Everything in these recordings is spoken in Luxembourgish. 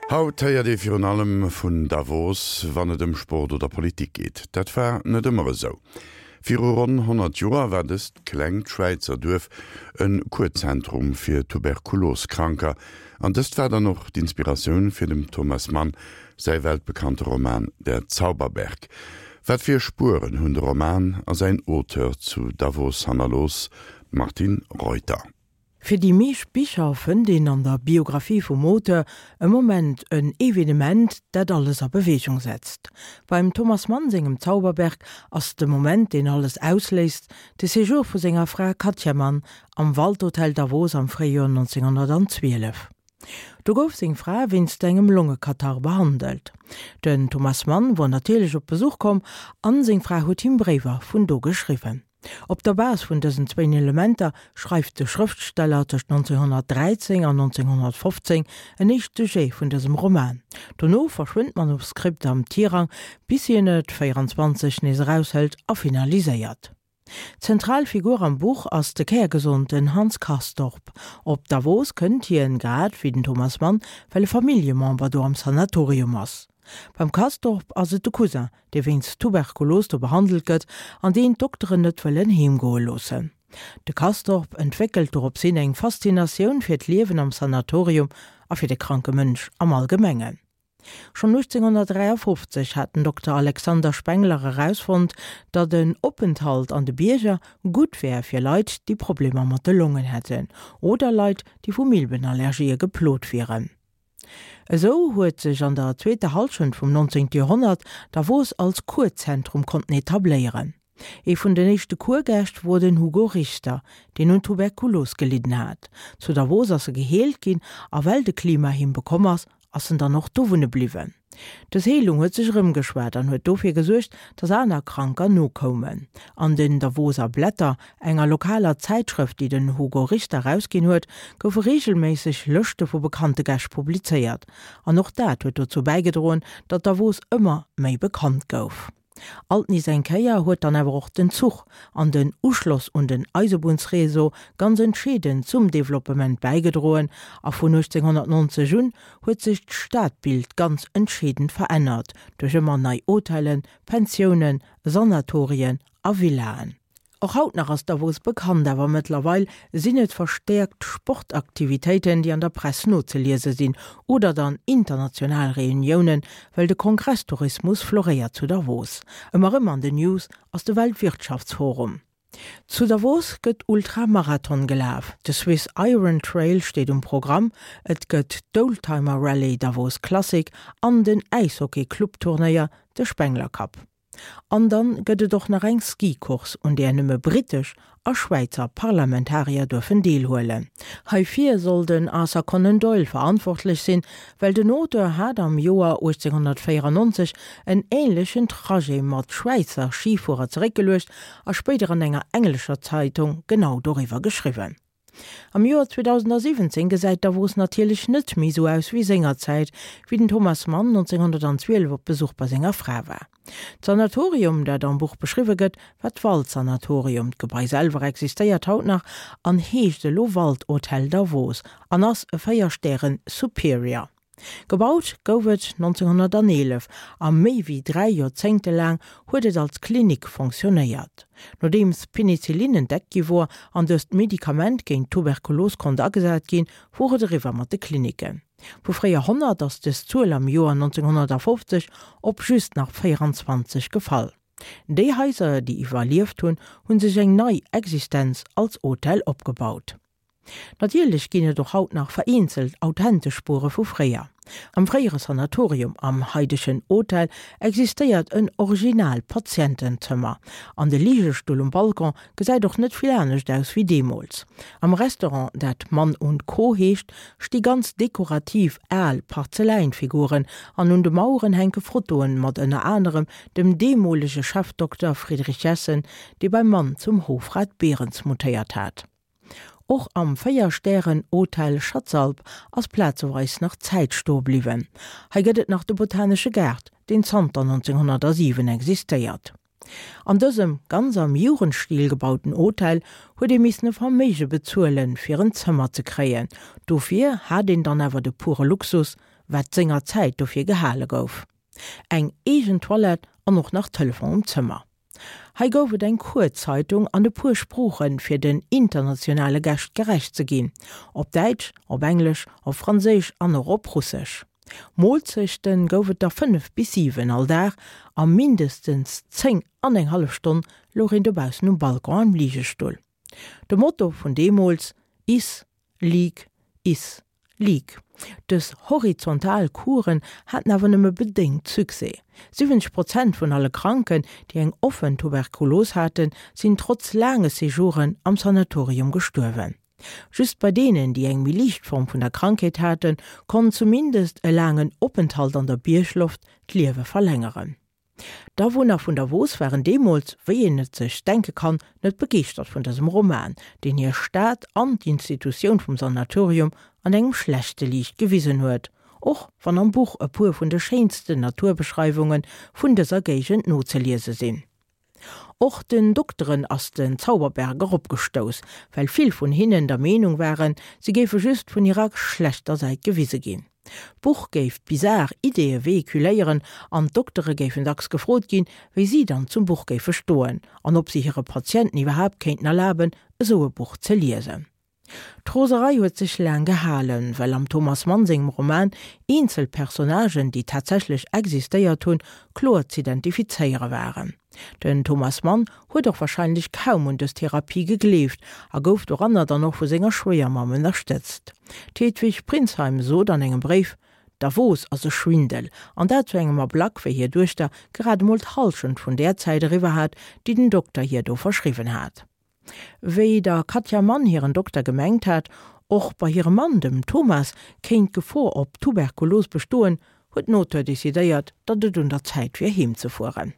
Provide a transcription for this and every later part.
Haut héiert ee virun allem vun Davos, wann et ëm Sport oder Politik geet. Dat war net ëmmer esou. Viru ronn 100 Joer war dëst klengt Schwäizer Duerf e Kuerzentrum fir Tuberkuloskranker, an dëst war dann och d'Inspiratioun fir dem Thomas Mann säi weltbekannte Roman Der Zauberberg. Wat fir Spueren hunn de Roman a säin Auteur zu Davos hannerlooss? D'Martine Reuter. Fir déi meescht Bicher fënnt een an der Biographie vum Auteur e Moment, en Evenement, dat alles a Beweegung setzt. Beim Thomas Mann sengem Zauberberg ass de Moment, deen alles ausléist, de Séjour vu senger Fra Katja Mann am Waldhotel Davos am Fréijoer 1912. Do gouf seng Fra wéinst engem Longekatarr behandelt. Den Thomas Mann wor natierlech op Besuch komm an seng Fra huet him Bréiwer vun do geschriwwen. Op der Base vun dësen zwéin Elementer schreift de Schrëftsteller tëscht 1913 an 1915 en éischte Jet vun dësem Roman. Dono verschwënnt d'Manuskript am Tirang, bis hien et 24 nees eraushëlt a finaliséiert. Zentral Figur am Buch ass de kärgesonten Hans Castorp. Op Davos kënnt hien, grad wéi den Thomas Mann, well e Familljemember do am Sanatorium ass. Beim Castorp ass et de Cousin, dee wéinst Tuberkulos do behandelt gëtt an deen d'Dokteren net wëllen heemgoe loossen. De Castorp entwéckelt dorops hin eng Faszinatioun fir d'Liewen am Sanatorium a fir de kranke Mënsch am Allgemengen. Schonn 1853 hat den Dokter Alexander Spengler erausfonnt, datt en Openthalt an de Bierger gutt wär fir Leit, déi Problemer mat de Longen hätten oder Leit, déi vu Milbenallergië geplot wieren. Esou huet sech an der zweeter Hallschent vum 19. Joerhonnert Davos als Kurzentrum konnten etabléieren. Ee vun den éischte Kurgäscht wor den Hugo Richter, deen un Tuberkulos gelidden hat. Zu Davos ass e geheelt ginn a well de Klima him bekomm ass, ass en dann och do wunne bliwwen. Dës Heelung huet sech erëmgeschwat an huet dofir gesuergt, datt aner Kranker nokoumen. An den Davoser Blätter, enger lokaler Zäitschrëft, déi den Hugo Richter erausginn huet, goufe reegelméisseg Lëschte vu bekannte Gäscht publizéiert. An och dat huet dozou bäigedroen, datt Davos ëmmer méi bekannt gouf. Alt nees eng Kéier huet dann awer och den Zuch an den Uschloss un den Eisebunnsréseau ganz entscheedend zum Developpement bäigedroen a vun 1890 un huet sech d'Stadbild ganz entscheedend verännert duerch ëmmer nei Hotellen, Pensiounen, Sanatorien a Villaen. Och haut nach ass Davos bekannt, awer mëttlerweil sinn et verstäerkt Sportaktivitéiten, déi an der Press nozeliese sinn, oder dann international Reuniounen, well de Kongresstourismus floréiert zu Davos. Ëmmer erëm an den News ass de Weltwirtschaftsforum. Zu Davos gëtt Ultramarathon gelaf, de Swiss Iron Trail steet um Programm, et gëtt d'Oldtimer Rallye Davos Classic an den Äishockey-Club-Turnéier, de Spengler Cup. An dann gëtt et och nach eng Ski-Course, un där nëmme brittesch a Schwäizer Parlamentarier duerfen deelhuelen. Heifir soll den Arthur Conan Doyle verantwortlech sinn, well den Auteur hat am Joer 1894 en änlechen Trajet mat Schwäizer Schifuerer zeréckgeluecht a spéider an enger englescher Zeitung genau doriwwer geschriwwen. Am Joer 2017 gesäit Davos natierlech net méi sou aus wéi sengerzäit, wéi den Thomas Mann 1912 op Besuch bei senger Fra war. D'Sanatorium, dat am Buch beschriwwe gëtt, war d'Waldsanatorium. D'Gebai selwer existéiert haut nach an heescht elo Waldhotel Davos an ass e 4 Stären Superior. Gebaut gouf et 1911 a méi wéi 3 Joerzéngte laang huet et als Klinik fonctionnéiert. Nodeems Penicillin entdeckt gi wor an dëst Medikament géint d'Tuberkulos konnt agesat ginn, wor et eriwwer mat de Kliniken. Vu fréier 100 ass dës Zuel am Joer 1950 op just nach 24 gefall. Déi Haiser, déi iwwerlieft hunn, hu sech eng nei Existenz als Hotel opgebaut. Natierlech ginn et och haut nach vereenzelt authentesch Spuere vu fréier. Am fréiere Sanatorium, am haidegen Hotel, existéiert en original Patientenzëmmer. An de Ligestull um Balcon gesäit och net vill anescht aus wéi deemools. Am Restaurant, dat Mann und Co heescht, sti ganz dekorativ al Parzeläinfiguren an un de Maueren hänke Fotoen mat ënner anerem dem deemolege Chefdokter Friedrich Jessen, dee beim Mann zum Hofrat Behrens mutéiert hat. Och am 4 Stären Hotel Schatzalp ass plazeweis nach Zäit stoe bliwwen. Hei gëtt et nach de botanesche Gaart, deen zanter 1907 existéiert. An dësem ganz am Jugendstil gebauten Hotel huet ee missen e Verméige bezuelen, fir en Zëmmer ze kréien. Dofir hat een dann awer de pure Luxus. wat senger Zäit dofir gehale gouf. Eng eegen Toilette an och nach Telefon um Zëmmer. Hei gouf et eng Kuerzeitung an e puer Sproochen, fir den internationale Gäscht gerecht ze ginn, op Däitsch, op Englesch, op Franséisch an och op Russesch. Moolzechten gouf et der 5 bis 7 all Dag a mindestens 10 an eng hallef Stonn louch een dobaussen um Balcon am Ligestull. De Motto vun deemools, Iss, lig, iss, lig. Dës horizontal Kuren haten awer nëmme bedéngt Succès. 70 Prozent vun alle Kranken, déi eng offen Tuberkulos haten, sinn trotz laange Séjouren am Sanatorium gestuerwen. Just bei deenen, déi eng méi liicht Form vun der Krankheet haten, konnt zumindest e laangen Openthalt an der Biergloft d'Liewe verlängeren. D'Awunner vun Davos waren deemools, wéi een et sech denke kann, net begeeschtert vun dësem Roman, deen hir Stad an d'Institutioun vum Sanatorium an engem schlechte Liicht gewisen huet, och wann am Buch e puer vun de schéinsten Naturbeschreiwunge vun dëser Géigend nozeliese sinn. Och den Dokteren ass den Zauberberg eropgestouss, well vill vun hinnen der Meenung waren, se géife just vun hirer schlechter Säit gewise ginn. D'Buch géif bizar Ideeë vehiculéieren an d'Doktere géifen dacks gefrot ginn, wéi si dann zum Buch géife stoen an ob si hire Patienten iwwerhaapt kéinten erlaben, esou e Buch ze liesen. D'Roserei huet sech laang gehalen, well am Thomas Mann sengem Roman eenzel Personnagen, déi tatsächlech existéiert hunn, kloer z'identifizéiere waren. Den Thomas Mann huet och warscheinlech kaum un dës Therapie gegleeft a gouf doranner dann och vu senger Schwéiermamm ënnerstëtzt. D'Hedwig Pringsheim sot an engem Bréif, Davos ass e Schwindel, an dat zu engem Ablack, wéi hir Duechter grad emol d'Hallschent vun där Zäit eriwwer hat, déi den Dokter hir do verschriwwen hat. Wéi der Katja Mann hiren Dokter gemengt hat, och bei hirem Mann, dem Thomas, kéint d'Gefor op Tuberkulos bestoen, huet den Auteur decidéiert, datt et un der Zäit wier heem ze fueren.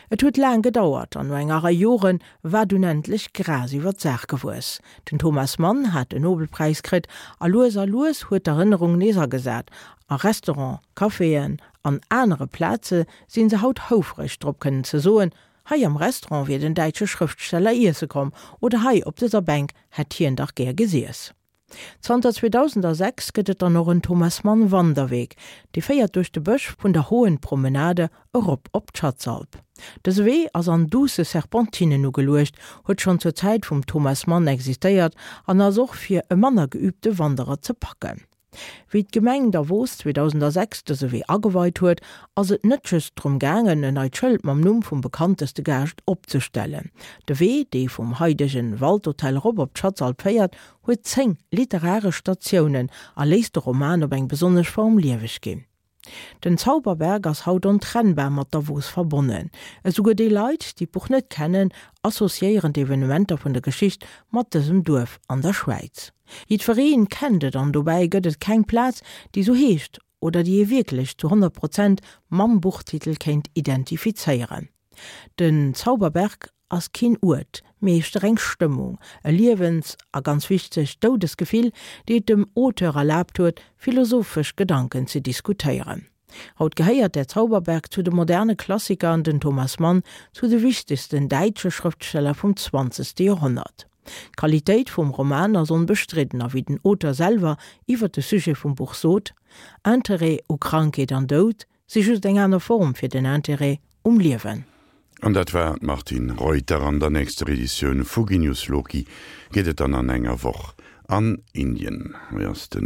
Et huet laang gedauert an no enger Rei Jore war dunn endlech Gras iwwer d'Saach gewuess. Den Thomas Mann hat den Nobelpräis kritt a lues a lues huet d'Erënnerung nees agesat. A Restaurant, Caféen an anere Plaze si se haut houfreg drop kënnen ze soen, Hei am Restaurant wier den däitsche Schrëftsteller iesse komm oder hei op dëser Bänk hätt hien dach gär gesiess. Zanter 2006 gëtt et dann och en Thomas Mann Wanderweg, dee féiert duerch de Bësch vun der Hohen Promenade erop op d'Schatzalp. Dëse Wee ass an duusse Serpentinen ugeluecht, huet schonn zur Zäit vum Thomas Mann existéiert an ass och fir e manner geübte Wanderer ze packen. Wéi d'Gemeng Davos 2006 dëse Wee ageweit huet, ass et net just drëm gaangen, en neit Schëld mam Numm vum bekannteste Gaascht opzestellen. De Wee, dee vum haidegen Waldhotel erop op d'Schatzalp féiert, huet 10 literaresch Statiounen a léisst de Roman op eng besonnesch Form lieweg ginn. Den Zauberberg ass haut ontrennbar mat Davos verbonnen. Esouguer déi Leit, déi d'Buch net kennen, associéieren d'Evenementer vun der Geschicht mat dësem Duerf an der Schwäiz. Jiddweree kennt et an dobäi gëtt et keng Plaz, déi sou heescht oder déi ee wierklech zu 100 Prozent mam Buchtitel kéint identifizéieren. Den Zauberberg ass keen Uert, mee éischter eng Stëmmung, e Liewens a ganz wichteg Doudesgefill, déi et dem Auteur erlaabt huet, philosophesch Gedanken ze diskutéieren. Haut gehéiert Der Zauberberg zu de moderne Klassiker an den Thomas Mann zu de wichtegsten däitsche Schrëftsteller vum zwanzegste Joerhonnert. D'Qualitéit vum Roman ass onbestridden a wéi den Auteur selwer iwwer de Sujet vum Buch sot, Interêt u Krankheet an Doud Si just eng aner Form fir den Intérêt um Liewen. An dat war d'Martine Reuter. An der nächster Editioun vu Genius Loci geet et dann an enger Woch an Indien. Hei ass de.